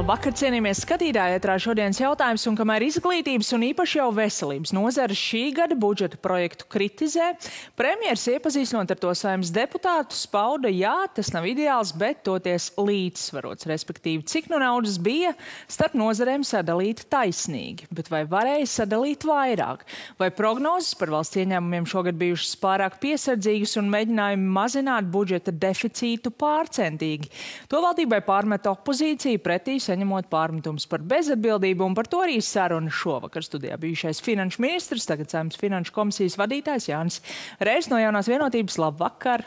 Labvakar, cienījamies skatītāji, ētrā šodienas jautājums, un kamēr izglītības un īpaši jau veselības nozares šī gada budžeta projektu kritizē, premjers iepazīstinot ar to Saeimas deputātus pauda, jā, tas nav ideāls, bet toties līdzsvarots, respektīvi, cik no naudas bija starp nozarēm sadalīt taisnīgi, bet vai varēja sadalīt vairāk, vai prognozes par valsts ieņēmumiem šogad bijušas pārāk piesardzīgas un mēģinājumi mazināt budžeta deficītu pārcentīgi. To valdībai pārmet opozīcija pretī, saņemot pārmetums par bezatbildību, un par to arī saruna šovakar studijā bijušais finanšu ministrs, tagad Saeimas finanšu komisijas vadītājs Jānis Reiss no Jaunās vienotības. Labvakar!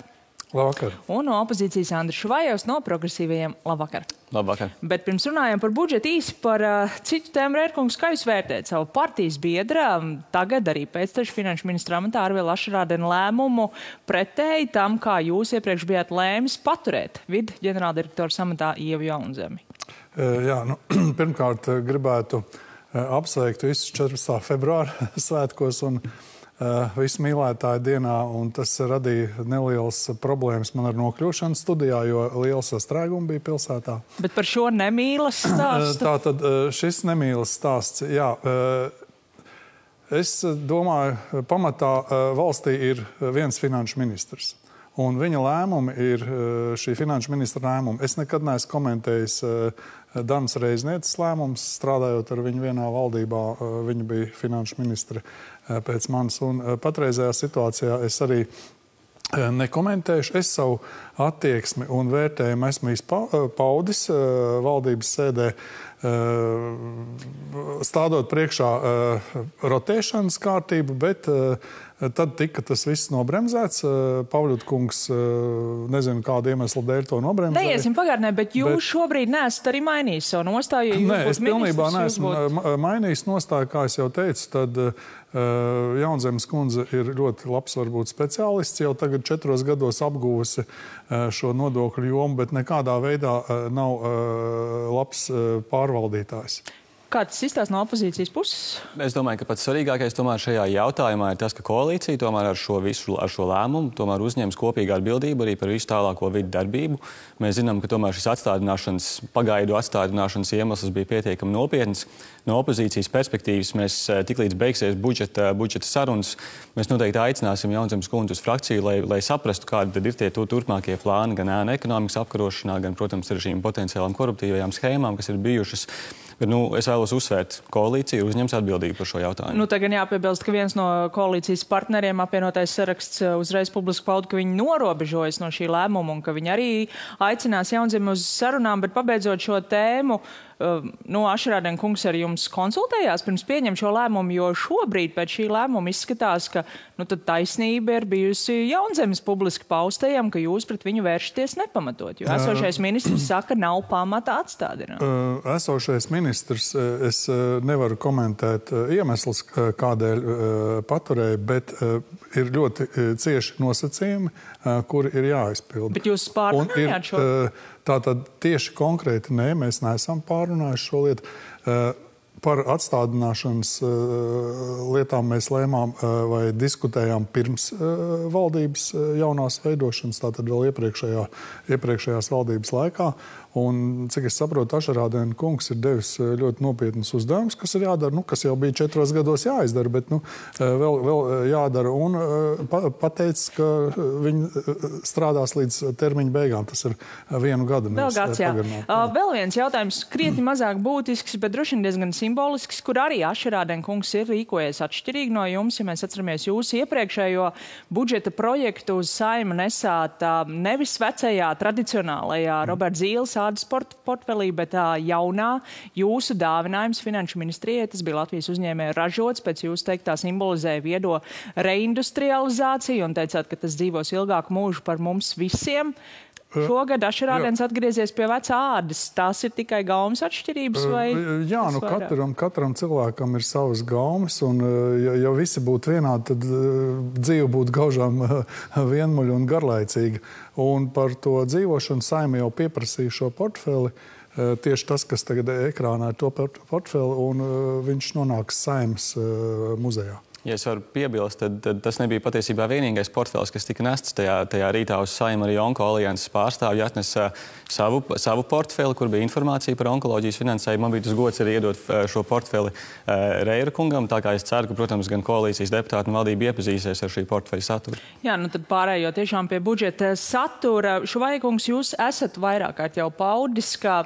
Labvakar! Un no opozīcijas Andris Švajovs no progresīvajiem. Labvakar! Labvakar! Bet pirms runājam par budžetu, īsi par citu tēmu, Rērkungs, kā jūs vērtējat savu partijas biedra, tagad arī pēctešu finanšu ministra amatā Arvila Ašarādena lēmumu pretēji tam, kā jūs iepriekš bijāt lēmis paturēt vidu ģenerāldirektora amatā Ievu Jaunzemi? Jā, pirmkārt gribētu apsveikt visus 14. februāra svētkos un visu mīlētāju dienā, un tas radīja nelielas problēmas man ar nokļūšanu studijā, jo liela sastrēguma bija pilsētā. Bet par šo nemīlas stāstu? Tātad šis nemīlas stāsts, jā. Es domāju, pamatā valstī ir viens finanšu ministrs. Un viņa lēmumi ir šī finanšu ministra lēmumi. Es nekad neesmu komentējis Danas Reiznieces lēmumus, strādājot ar viņu vienā valdībā. Viņa bija finanšu ministre pēc manis. Un patreizējā situācijā es arī nekomentēšu. Es savu attieksmi un vērtējumu esmu paudis valdības sēdē, stādot priekšā rotēšanas kārtību, bet tad tika tas viss nobremzēts. Pavļut kungs, nezinu, kādu iemeslu dēļ to nobremzēja. Neiesim pagātnē, bet jūs šobrīd neesat arī mainījis savu nostāju, ja jūs Nē, es pilnībā neesmu mainījis nostāju, kā es jau teicu, tad Jaunzemes kundze ir ļoti labs, varbūt speciālists, jau tagad 4 gados apguvusi šo nodokļu jomu, bet nekādā veidā nav labs pārvaldītājs. Kā tas izstāsta no opozīcijas puses? Es domāju, ka pats svarīgākais tomēr šajā jautājumā ir tas, ka koalīcija tomēr ar šo lēmumu tomēr uzņems kopīgu atbildību arī par visu tālāko vidu darbību. Mēs zinām, ka tomēr šis pagaidu atstādināšanas iemesls bija pietiekami nopietns. No opozīcijas perspektīvas mēs tiklīdz beigsies budžeta sarunas, mēs noteikti aicināsim Jaunzemes kundzi uz frakciju, lai saprastu, kādi tad ir tie turpmākie plāni gan ēnu ekonomikas apkarošanā, gan, protams, ar šīm potenciālām koruptīvajām schēmām, kas ir bijušas. Bet, es vēlos uzsvērt, koalīcija uzņems atbildību par šo jautājumu. Tagad jāpiebilst, ka viens no koalīcijas partneriem, apvienotais saraksts, uzreiz publiski pauda, ka viņi norobežojas no šī lēmuma un ka viņi arī aicinās Jaunzemi uz sarunām, bet pabeidzot šo tēmu, Ašarādena kungs ar jums konsultējās pirms pieņem šo lēmumu, jo šobrīd pēc šī lēmuma izskatās, ka tad taisnība ir bijusi Jaunzemes publiski paustajam, ka jūs pret viņu vēršaties nepamatot, jo esošais ministrs saka, nav pamata atstādināt. Esošais ministrs, es nevaru komentēt iemeslus, kādēļ paturēja, bet ir ļoti cieši nosacījumi, kuri ir jāizpilda. Bet jūs pārrunājāt šo? Tātad tieši konkrēti nē, mēs neesam pārrunājuši šo lietu. Par atstādināšanas lietām mēs lēmām vai diskutējām pirms valdības jaunās veidošanas, tātad vēl iepriekšējās valdības laikā. Un, cik es saprotu, Ašarādena kungs ir devis ļoti nopietnus uzdevumus, kas ir jādara, kas jau bija 4 gados jāizdara, bet vēl jādara. Un pateicis, ka viņi strādās līdz termiņa beigām. Tas ir 1 gadu. Vēl viens jautājums, krietni mazāk būtisks, bet droši vien diezgan simbolisks, kur arī Ašarādena kungs ir rīkojies atšķirīgi no jums. Ja mēs atceramies jūsu iepriekšējo budžeta projektu uz Saimu nesāt nevis vecajā, tradicionālajā Roberts Zīles ādas portfelī, bet jaunā jūsu dāvinājums finanšu ministrijai. Tas bija Latvijas uzņēmēju ražots, pēc jūs teiktā simbolizēja viedo reindustrializāciju un teicāt, ka tas dzīvos ilgāku mūžu par mums visiem. Šogad Ašarādens atgriezies pie vecā ādas. Tās ir tikai gaumas atšķirības? Jā, katram cilvēkam ir savas gaumas, un ja visi būtu vienādi, tad dzīve būtu gaužām vienmuļa un garlaicīga. Un par to dzīvošanu Saeima jau pieprasīja šo portfeli. Tieši tas, kas tagad ekrānā ir to portfeli, un viņš nonāks Saeimas muzejā. Ja es varu piebilst, tad tas nebija patiesībā vienīgais portfels, kas tika nests tajā rītā uz Saimu. Arī Onko alianses pārstāvji atnesa savu portfeli, kur bija informācija par onkoloģijas finansējumu. Man bija tas gods arī iedot šo portfeli Reira kungam, tā kā es ceru, ka, protams, gan koalīcijas deputāti un valdība iepazīsies ar šī portfeļa saturu. Jā, tad pārējot tiešām pie budžeta satura. Šuvaja kungs, jūs esat vairāk kārt jau paudis, ka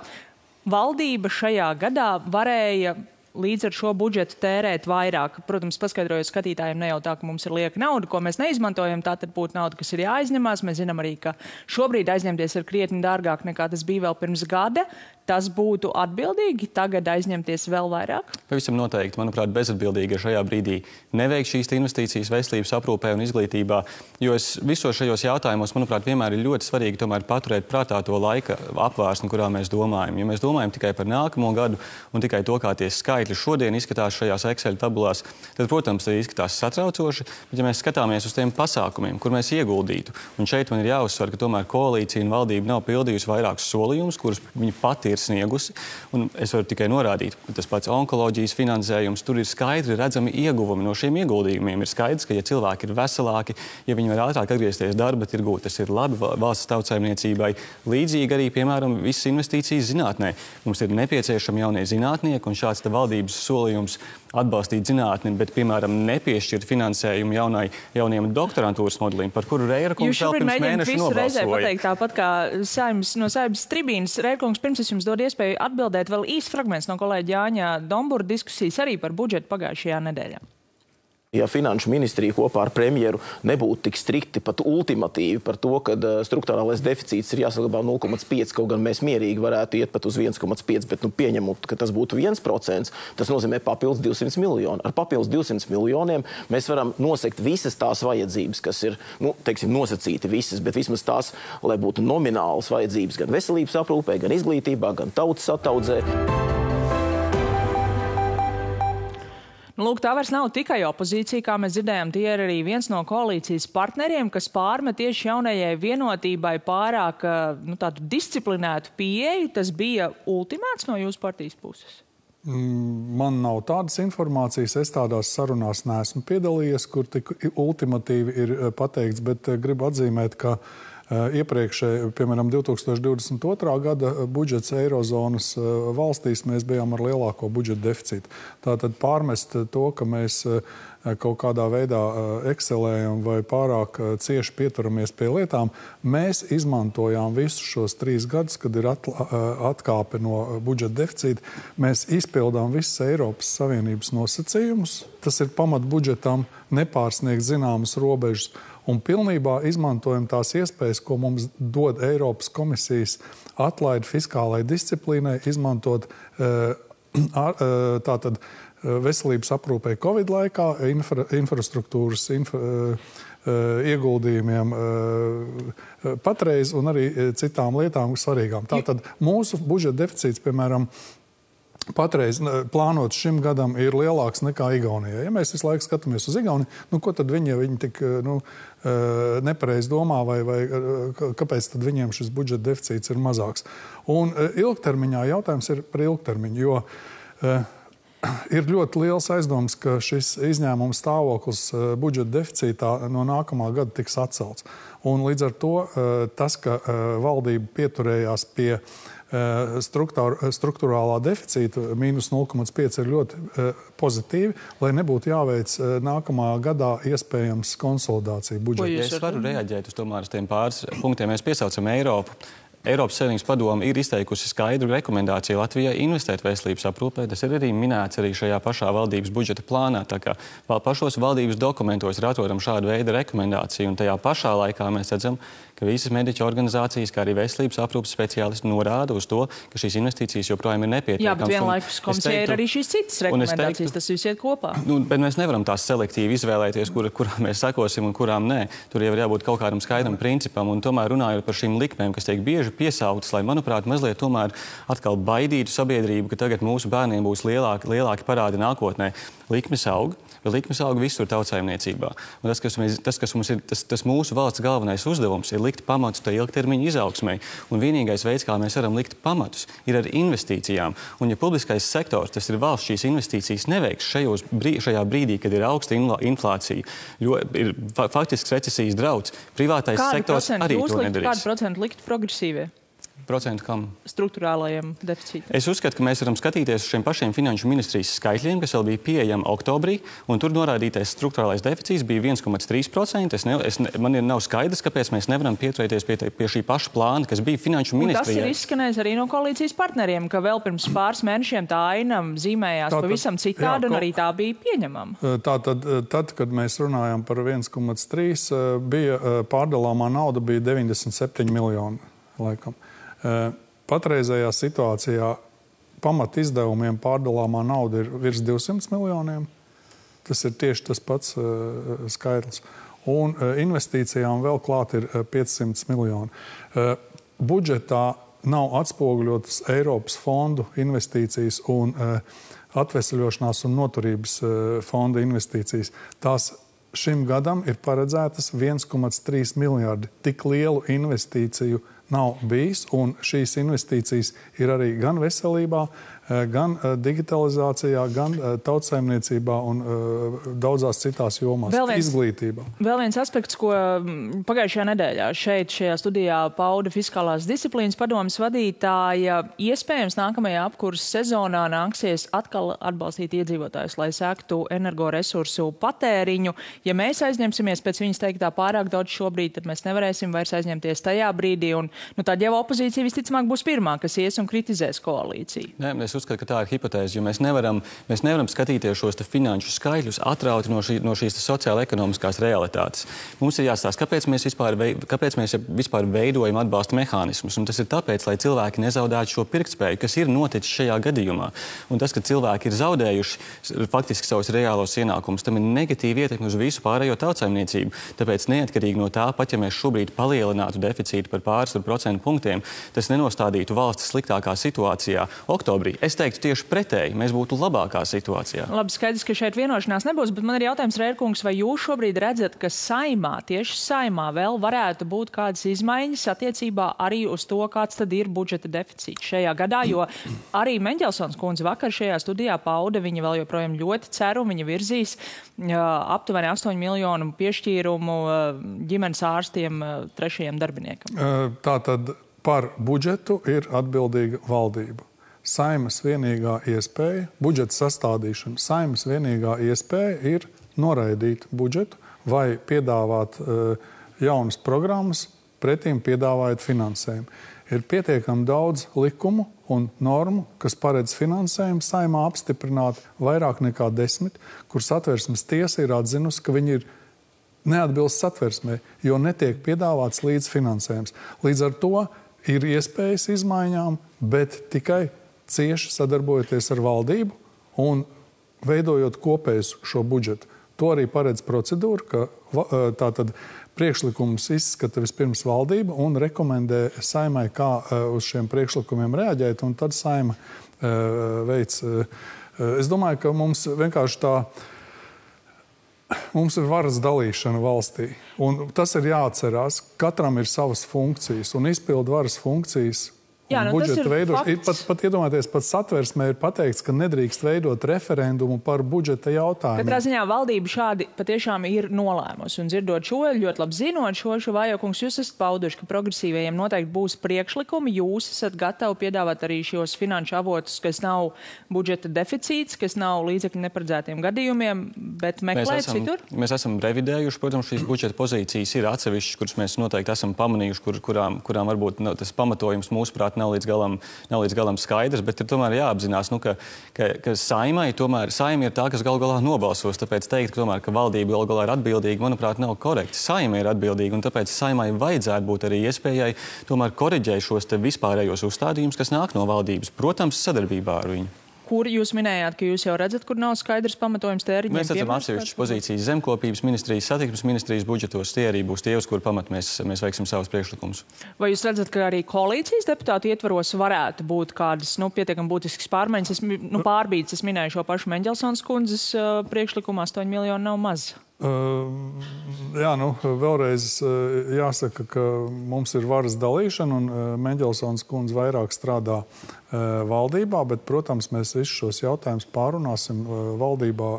valdība šajā gadā varēja līdz ar šo budžetu tērēt vairāk. Protams, paskaidrojot skatītājiem, ne jau tā, ka mums ir lieka nauda, ko mēs neizmantojam, tā tad būtu nauda, kas ir jāaizņemās. Mēs zinām arī, ka šobrīd aizņemties ir krietni dārgāk nekā tas bija vēl pirms gada. Tas būtu atbildīgi tagad aizņemties vēl vairāk? Pavisam noteikti, manuprāt, bezatbildīgi ir šajā brīdī neveikt šīs investīcijas veselības aprūpē un izglītībā, jo visos šajos jautājumos, manuprāt, vienmēr ir ļoti svarīgi tomēr paturēt prātā to laika apvārsni, kurā mēs domājam. Ja mēs domājam tikai par nākamo gadu un tikai to, kā tie skaitļi šodien izskatās šajās Excel tabulās, tad, protams, tas izskatās satraucoši, bet ja mēs skatāmies uz tiem pasākumiem, kur mēs ieguldītu, un šeit man ir jāuzsver, ka tomēr koalīcija un valdība nav pildījusi vairākus solījumus, kurus viņi pati ir sniegusi. Un es varu tikai norādīt, ka tas pats onkoloģijas finansējums, tur ir skaidri redzami ieguvumi no šiem ieguldījumiem. Ir skaidrs, ka ja cilvēki ir veselāki, ja viņi var ātrāk atgriezties darba tirgū, tas ir labi valsts tautsaimniecībai. Līdzīgi arī, piemēram, visas investīcijas zinātnē. Mums ir nepieciešami jaunie zinātnieki, un šāds valdības solījums atbalstīt zinātni, bet, piemēram, nepiešķirt finansējumu jauniem doktorantūras modelim, par kuru Reira kungs vēl pirms mēneša nobalsoja. Jūs šobrīd mēģināt visu reizē pateikt tāpat kā no Saeimas tribīnas. Reira kungs, pirms es jums dod iespēju atbildēt, vēl īsts fragments no kolēģa Jāņa Dombura diskusijas arī par budžetu pagājušajā nedēļā. Ja Finanšu ministrija kopā ar premjeru nebūtu tik strikti, pat ultimatīvi par to, ka strukturālais deficīts ir jāsaglabā 0,5, kaut gan mēs mierīgi varētu iet pat uz 1,5, bet pieņemot, ka tas būtu 1%, tas nozīmē papildus 200 miljoni. Ar papildus 200 miljoniem mēs varam nosekt visas tās vajadzības, kas ir, nosacīti visas, bet vismaz tās, lai būtu nominālas vajadzības gan veselības aprūpē, gan izglītībā, gan tautas ataudzē. Lūk, tā vairs nav tikai opozīcija, kā mēs dzirdējām, tie ir arī viens no koalīcijas partneriem, kas pārmet tieši jaunajai vienotībai pārāk tādu disciplinētu pieeju. Tas bija ultimāts no jūsu partijas puses? Man nav tādas informācijas, es tādās sarunās neesmu piedalījies, kur tik ultimatīvi ir pateikts, bet gribu atzīmēt, ka iepriekšēji, piemēram, 2022. gada budžets Eirozonas valstīs mēs bijām ar lielāko budžeta deficītu. Tātad pārmest to, ka mēs kaut kādā veidā ekselējam vai pārāk cieši pieturamies pie lietām, mēs izmantojām visus šos 3 gadus, kad ir atkāpe no budžeta deficīta. Mēs izpildām visas Eiropas Savienības nosacījumus. Tas ir pamat budžetam nepārsniegt zināmas robežas. Un pilnībā izmantojam tās iespējas, ko mums dod Eiropas komisijas atlaide fiskālai disciplīnai, izmantot tātad veselības aprūpē Covid laikā, infrastruktūras ieguldījumiem patreiz un arī citām lietām svarīgām. Tātad mūsu budžeta deficīts, piemēram, patreiz plānot šim gadam ir lielāks nekā Igaunijai. Ja mēs visu laiku skatāmies uz Igauniju, ko tad viņi tik nepareizi domā vai kāpēc tad viņiem šis budžeta deficīts ir mazāks? Un ilgtermiņā jautājums ir par ilgtermiņu, jo ir ļoti liels aizdoms, ka šis izņēmuma stāvoklis budžeta deficītā no nākamā gada tiks atcelts. Un līdz ar to tas, ka valdība pieturējās pie struktūrālā deficīta mīnus 0,5 ir ļoti pozitīvi, lai nebūtu jāveic nākamā gadā iespējams konsolidācija budžeta. Ja es varu reaģēt uz tiem pāris punktiem. Mēs piesaucam Eiropu. Eiropas Savienības padome ir izteikusi skaidru rekomendāciju Latvijai investēt veselības aprūpē. Tas ir arī minēts arī šajā pašā valdības budžeta plānā. Tā kā pašos valdības dokumentos ir atrodama šāda veida rekomendācija, un tajā pašā laikā mēs redzam, ka visas mediķu organizācijas, kā arī veselības aprūpes speciālisti norāda uz to, ka šīs investīcijas joprojām ir nepietiekamas. Jā, bet vienlaikus komisijai ir arī šīs citas rekomendācijas, tas viss iet kopā. Bet mēs nevaram tās selektīvi izvēlēties, kurām mēs sakosim un kurām nē. Tur jau ir jābūt kaut kādam skaidram principam, un tomēr runājot par šīm likmēm, kas tiek bieži piesautas, lai, manuprāt, mazliet tomēr atkal baidītu sabiedrību, ka tagad mūsu bērniem būs lielāki parādi nākotnē. likmes aug, bet likmes aug visur tautsaimniecībā. Un tas mūsu valsts galvenais uzdevums ir likt pamatus tai ilgtermiņa izaugsmai. Un vienīgais veids, kā mēs varam likt pamatus, ir ar investīcijām. Un ja publiskais sektors, tas ir valsts, šīs investīcijas neveiks šajā brīdī, kad ir augsta inflācija, jo ir faktisks recesijas drauds, privātais sektors arī to nedarīs. Kādu procentu likt progresīvie? Procentu kam? Struktūrālajiem deficītam. Es uzskatu, ka mēs varam skatīties uz šiem pašiem finanšu ministrijas skaitļiem, kas vēl bija pieejami oktobrī, un tur norādītais struktūrālais deficīts bija 1,3%. Man nav skaidrs, kāpēc mēs nevaram pieturēties pie šī paša plāna, kas bija finanšu ministrijai. Tas ir izskanējis arī no koalīcijas partneriem, ka vēl pirms pāris mēnešiem tā aina zīmējās pavisam citādi, un arī tā bija pieņemama. Tad, kad mēs runājam par 1,3, bija pārdalāmā nauda bija 97 miljoni, laikam. Patreizējā situācijā pamat izdevumiem pārdalāmā nauda ir virs 200 miljoniem. Tas ir tieši tas pats skaitlis. Un investīcijām vēl klāt ir 500 miljoni. Budžetā nav atspoguļotas Eiropas fondu investīcijas un atveseļošanās un noturības fonda investīcijas. Tās šim gadam ir paredzētas 1,3 miljardi. Tik lielu investīciju nav bijis, un šīs investīcijas ir arī gan veselībā, gan digitalizācijā, gan tautsaimniecībā un daudzās citās jomās, izglītībā. Vēl viens aspekts, ko pagājušajā nedēļā šajā studijā pauda Fiskālās disciplīnas padomes vadītāja, iespējams nākamajā apkurses sezonā nāksies atkal atbalstīt iedzīvotājus, lai sektu energoresursu patēriņu. Ja mēs aizņemsimies pēc viņas teiktā pārāk daudz šobrīd, tad mēs nevarēsim vairs aizņemties tajā brīdī, un tad jau opozīcija visticamāk būs pirmā, kas ies un kritizēs koalīciju. Es uzskatu, ka tā ir hipotēze, jo mēs nevaram skatīties šos finanšu skaitļus atrauti no šīs sociāla-ekonomiskās realitātes. Mums ir jāstāsta, kāpēc mēs vispār veidojam atbalsta mehānismus. Un tas ir tāpēc, lai cilvēki nezaudētu šo pirktspēju, kas ir noticis šajā gadījumā. Un tas, ka cilvēki ir zaudējuši faktiski savus reālos ienākumus, tam ir negatīva ietekme uz visu pārējo tautsaimniecību. Tāpēc neatkarīgi no tā, pat ja mēs šobrīd palielinātu deficītu par pāris procentu punktiem, tas nenostādītu valsts sliktākā situācijā oktobrī. Es teiktu tieši pretēji, mēs būtu labākā situācijā. Labi, skaidrs, ka šeit vienošanās nebūs, bet man ir jautājums, Rērkungs, vai jūs šobrīd redzat, ka tieši saimā vēl varētu būt kādas izmaiņas attiecībā arī uz to, kāds tad ir budžeta deficīts šajā gadā, jo arī Meņģelsons kundze vakar šajā studijā pauda, viņa vēl joprojām ļoti ceru, viņa virzīs aptuveni 8 miljonu piešķīrumu ģimenes ārstiem 3. darbiniekam. Tātad par budžetu ir atbildīga valdība. Saimas vienīgā iespēja, budžeta sastādīšana, Saimas vienīgā iespēja ir noraidīt budžetu vai piedāvāt jaunas programmas, pretīm piedāvājot finansējumu. Ir pietiekami daudz likumu un normu, kas paredz finansējumu Saimā apstiprināt vairāk nekā 10, kur Satversmes tiesa ir atzinusi, ka viņi ir neatbilst Satversmei, jo netiek piedāvāts līdzfinansējums. Līdz ar to ir iespējas izmaiņām, bet tikai cieši sadarbojoties ar valdību un veidojot kopējus šo budžetu. To arī paredz procedūra, ka tātad priekšlikumus izskata vispirms valdība un rekomendē Saimai, kā uz šiem priekšlikumiem reaģēt, un tad Saima veic. Es domāju, ka mums vienkārši mums ir varas dalīšana valstī, un tas ir jāatcerās. Katram ir savas funkcijas, un izpildu varas funkcijas. Jā, budžeta veidošana. Pat iedomājieties, pat Satversmē ir pateikts, ka nedrīkst veidot referendumu par budžeta jautājumiem. Katrā ziņā valdība šādi patiešām ir nolēmusi. Un dzirdot šo, ļoti labi zinot šo Vājokungs, jūs esat pauduši, ka progresīvajiem noteikti būs priekšlikumi. Jūs esat gatavi piedāvāt arī šos finanšu avotus, kas nav budžeta deficīts, kas nav līdzekļu neparedzētiem gadījumiem, bet meklēt citur? Mēs esam revidējuši, protams, šīs budžeta pozīcijas ir atsevišķas, kuras mēs noteikti esam pamanījuši, kurām varbūt tas pamatojums mūsuprāt nav līdz galam skaidrs, bet ir tomēr jāapzinās, ka Saima ir tā, kas galu galā nobalsos. Tāpēc teikt, ka valdība galu galā ir atbildīga, manuprāt, nav korekti. Saima ir atbildīga, un tāpēc Saimai vajadzētu būt arī iespējai tomēr koriģēt šos te vispārējos uzstādījumus, kas nāk no valdības, protams, sadarbībā ar viņu. kur jūs minējāt, ka jūs jau redzat, kur nav skaidrs pamatojums tēriņiem? Mēs redzam atsevišķas pozīcijas zemkopības ministrijas, satiksmes ministrijas budžetos. Tie arī būs tie, uz kur pamat mēs veiksim savus priekšlikumus. Vai jūs redzat, ka arī koalīcijas deputātu ietvaros varētu būt kādas pietiekami būtiskas pārmaiņas? Pārbīdes, es minēju šo pašu Meņģelsons kundzes priekšlikumu, 8 miljoni nav maz. Jā, vēlreiz jāsaka, ka mums ir varas dalīšana un Meņģelsons kundze vairāk strādā valdībā, bet, protams, mēs visus šos jautājumus pārunāsim valdībā,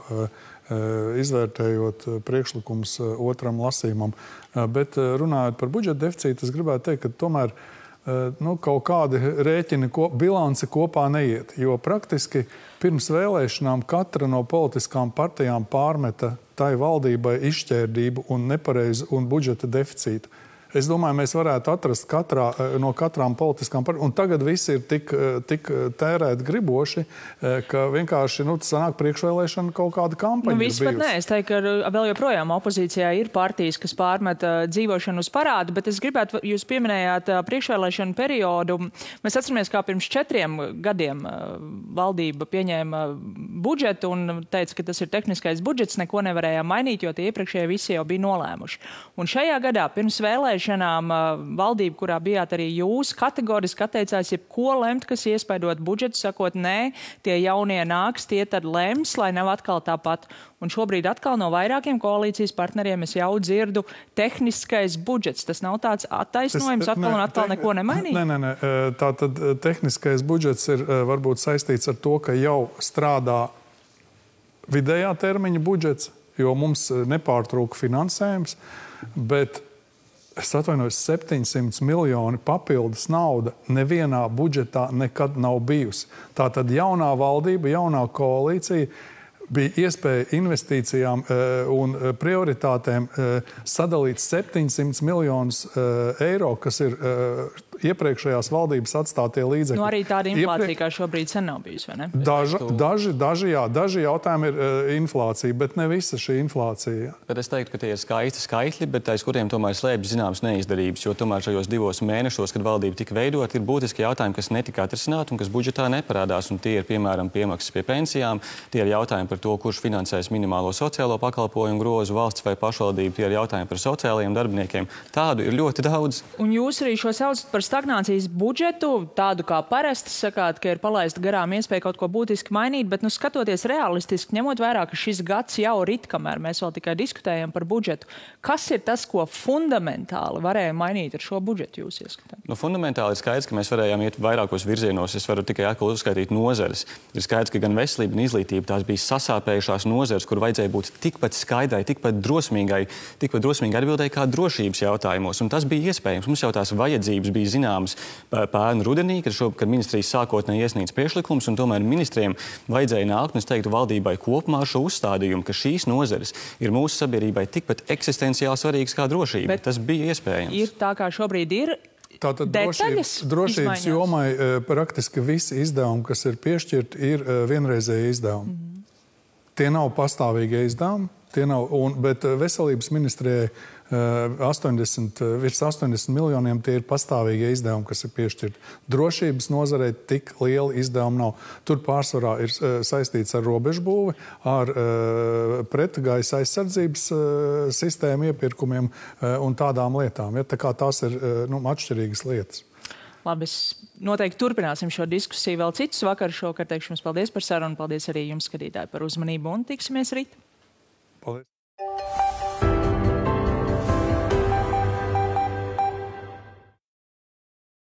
izvērtējot priekšlikumus otram lasījumam. Bet runājot par budžeta deficītu, es gribētu teikt, ka tomēr kaut kādi rēķini, bilanci kopā neiet, jo praktiski pirms vēlēšanām katra no politiskām partijām pārmeta tai valdībai izšķērdību un nepareizu un budžeta deficītu. Es domāju, mēs varētu atrast no katrām politiskām partijām. Un tagad visi ir tik tērēt griboši, ka vienkārši sanāk priekšvēlēšana kaut kāda kampaņa. Vispār nē, es teiktu, ka vēl joprojām opozīcijā ir partijas, kas pārmet dzīvošanu uz parādu, bet es gribētu, jūs pieminējāt priekšvēlēšanu periodu. Mēs atceramies, kā pirms 4 gadiem valdība pieņēma budžetu un teica, ka tas ir tehniskais budžets, neko nevarējām mainīt, jo tie iepriekšējie visi jau bija nolēmuši. Un šajā gadā pirms vēlēšanām valdība, kurā bijāt arī jūs, kategoriski atteicās jebko lemt, kas iespaidot budžetu, sakot, nē, tie jaunie nāks, tie tad lems, lai nav atkal tāpat. Un šobrīd atkal no vairākiem koalīcijas partneriem es jau dzirdu tehniskais budžets. Tas nav tāds attaisnojums, atkal neko nemainīt? Nē. Tātad tehniskais budžets ir varbūt saistīts ar to, ka jau strādā vidējā termiņa budžets, jo mums nepārtrūka finansējums, bet es atvainojos, 700 miljoni papildus nauda nevienā budžetā nekad nav bijusi. Tātad jaunā valdība, jaunā koalīcija bija iespēja investīcijām un prioritātēm sadalīt 700 miljonus eiro, kas ir iepriekšējās valdības atstātie līdzekļi. Arī tāda inflācija, kā šobrīd sen nav bijusi, vai ne? Daži jautājumi ir inflācija, bet ne visa šī inflācija. Bet es teiktu, ka tie ir skaisti skaitļi, bet aiz kuriem tomēr slēpjas zināmas neizdarības, jo tomēr šajos 2 mēnešos, kad valdība tika veidot, ir būtiski jautājumi, kas netika atrisināti un kas budžetā neparādās. Un tie ir, piemēram, piemaksas pie pensijām, tie ir jautājumi par to, kurš finansēs minimālo sociālo pakalpojumu grozu, valsts vai pašvaldību, tie ir jautājumi par sociālajiem darbiniekiem. Tādu ir ļoti daudz. Un jūs arī šo saucat par stagnācijas budžetu, tādu kā parasti sakāt, ka ir palaista garām iespēja kaut ko būtiski mainīt, bet skatoties realistiski, ņemot vērā, ka šis gads jau rit, kamēr mēs vēl tikai diskutējam par budžetu, kas ir tas, ko fundamentāli varēja mainīt ar šo budžetu jūs ieskatāt? Fundamentāli ir skaidrs, ka mēs varējām iet vairākos virzienos. Es varu tikai atkal uzskaitīt nozares. Ir skaidrs, ka gan veselība un izglītība tās bija sasāpējušās nozares, kur vajadzēja būt tikpat skaidrai, tikpat drosmīgi atbildēji kā drošības jautājumos. Un tas bija iespējams. Mums jau tās vajadzības bija zināmas pērn rudenī, kad ministrijas sākotnēji iesniedz priekšlikums, un tomēr ministriem vajadzēja nākt, un es teiktu valdībai kopumā ar šo uzstādījumu, ka šīs nozares ir mūsu sabiedrībai tikpat eksistenciāli svarīgas kā drošība. Bet tas bija iespējams. Ir tā, kā šobrīd ir. Tātad drošības jomai praktiski visi izdevumi, kas ir piešķirti, ir vienreizēji izdevumi. Tie nav pastāvīgie izdevumi, bet veselības ministrijai virs 80 miljoniem tie ir pastāvīgie izdevumi, kas ir piešķirti. Drošības nozarei tik liela izdevuma nav. Tur pārsvarā ir saistīts ar robežbūvi, ar pretgaisa aizsardzības sistēmu iepirkumiem un tādām lietām. Ja? Tā kā tās ir atšķirīgas lietas. Labi, noteikti turpināsim šo diskusiju vēl citus vakarus. Šovakar teikšu jums paldies par sarunu, paldies arī jums, skatītāji, par uzmanību un tiksimies rīt. Paldies.